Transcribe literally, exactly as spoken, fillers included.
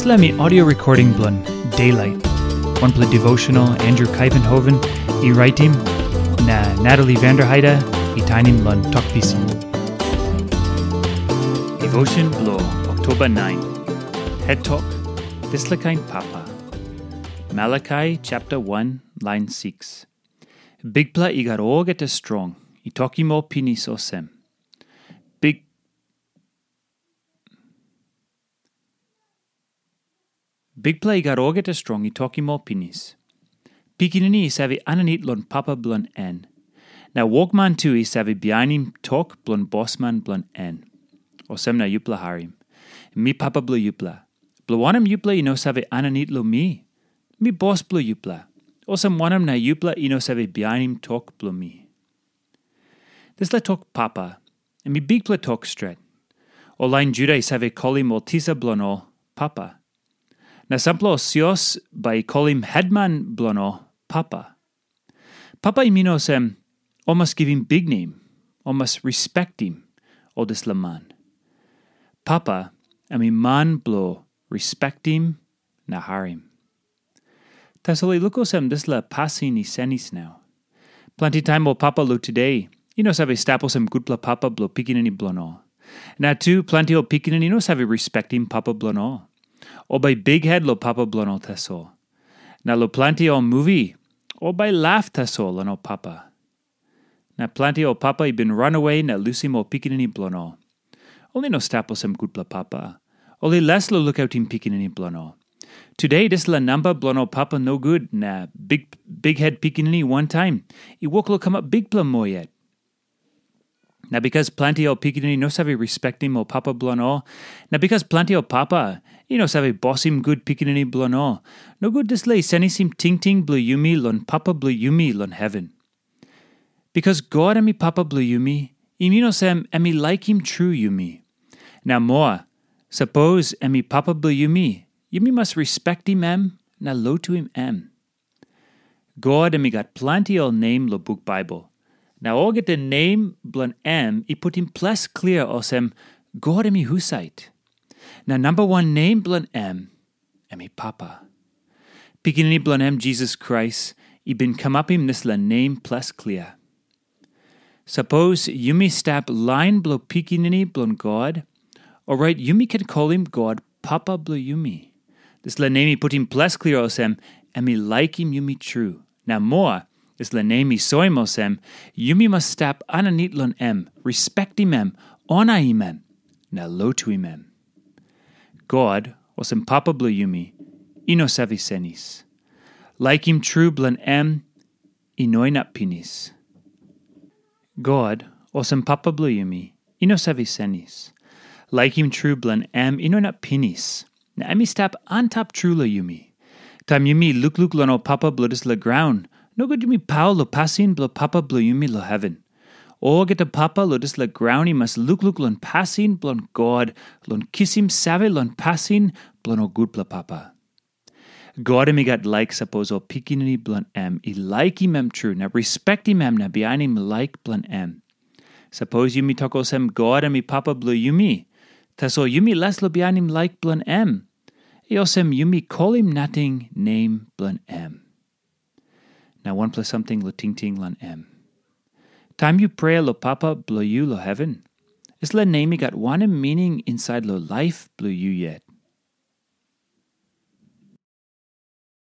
Dispela em i audio recording bilong Daylight, wanpela devotional Andrew Kaivenhoven i raitim, na Natalie Vanderheide i tainim long Tok Pisin. Devotion bilong Oktoba nine. Het tok, dispela kain papa. Malakai chapter one, line six. Bikpela i gat olgeta strong, i tokim ol pinis olsem. Bik Bikpela i gat olgeta strong i tokim ol pinis. Pikinini i save aninit long papa bilong en. Na wokman tu i save bihainim tok bilong bosman bilong en. Olsem na yupela harim. Mi papa bilong yupela. Bilong wanem yupela i no save aninit long mi? Mi bos bilong yupela. Olsem wanem na yupela i no save bihainim tok bilong mi? Dispela tok papa, em i bikpela tok stret. Ol lain Juda i save kolim ol tisa bilong ol papa. Na sampela ol sios bai i kolim hetman bilong ol papa. Papa i min olsem, ol mas givim biknem, ol mas respektim ol dispela man. Papa, em i man bilong respektim na harim. Tasol i luk olsem dispela pasin i senis nau. Planti taim ol papa long tude i no save stap olsem gutpela papa bilong pikinini bilong ol. Na tu planti ol pikinini i no save respektim papa bilong ol. Ol bai bikhet long papa bilong ol tasol. Na long planti ol muvi, ol bai laf tasol long ol papa. Na planti ol papa i bin ranawe na lusim ol pikinini bilong ol. Ol i no stap olsem gutpela papa. Ol i les long lukautim pikinini bilong ol. Tude dispela namba bilong ol papa nogut na big, bikhet pikinini wantaim i wok long kamap bikpela moa yet. Na bikas planti ol pikinini no save respektim ol papa bilong ol, na bikas planti ol papa i no save bosim gut pikinini bilong ol, nogut dispela i senisim tingting bilong yumi long Papa bilong yumi long heven. Bikas God em i Papa bilong yumi, i min olsem em i laikim tru yumi. Na moa, sapos em i Papa bilong yumi, yumi mas respektim em na lotuim em. God em i gat planti ol nem long buk Baibel. Na olgeta nem bilong em i putim ples klia olsem God em i husat. Na namba wan nem bilong em, em i Papa. Pikinini bilong em Jisas Krais i bin kamapim dispela nem ples klia. Sapos yumi stap lain bilong pikinini bilong God, orait yumi ken kolim God Papa bilong yumi. Dispela nem i putim ples klia olsem, em i laikim yumi tru. Na moa, dispela nem i soim olsem, yumi mas stap aninit long em, respektim em, onaim em, na lotuim em. God, olsem Papa bilong yumi, i no save senis. Laikim tru bilong em i no inap pinis. God, olsem Papa bilong yumi, i no save senis. Laikim tru bilong em i no inap pinis, na em i stap antap tru long yumi. Taim yumi lukluk long ol papa bilong dispela graun, nogut yumi paul long pasin bilong Papa bilong yumi long heven. Olgeta papa long dispela graun i mas lukluk long pasin bilong God, long kisim save long pasin bilong ol gutpela papa. God em i gat laik sapos ol pikinini bilong em i laikim em tru na respektim em na bihainim laik bilong em. Sapos yumi tok olsem God em i Papa bilong yumi, tasol yumi les long bihainim laik bilong em, i olsem yumi kolim nating nem bilong em. Na wanpela samting long tingting long em. Taim yu prea long Papa bilong yu long heven, dispela nem i gat wanem mining insait long laip bilong yu yet?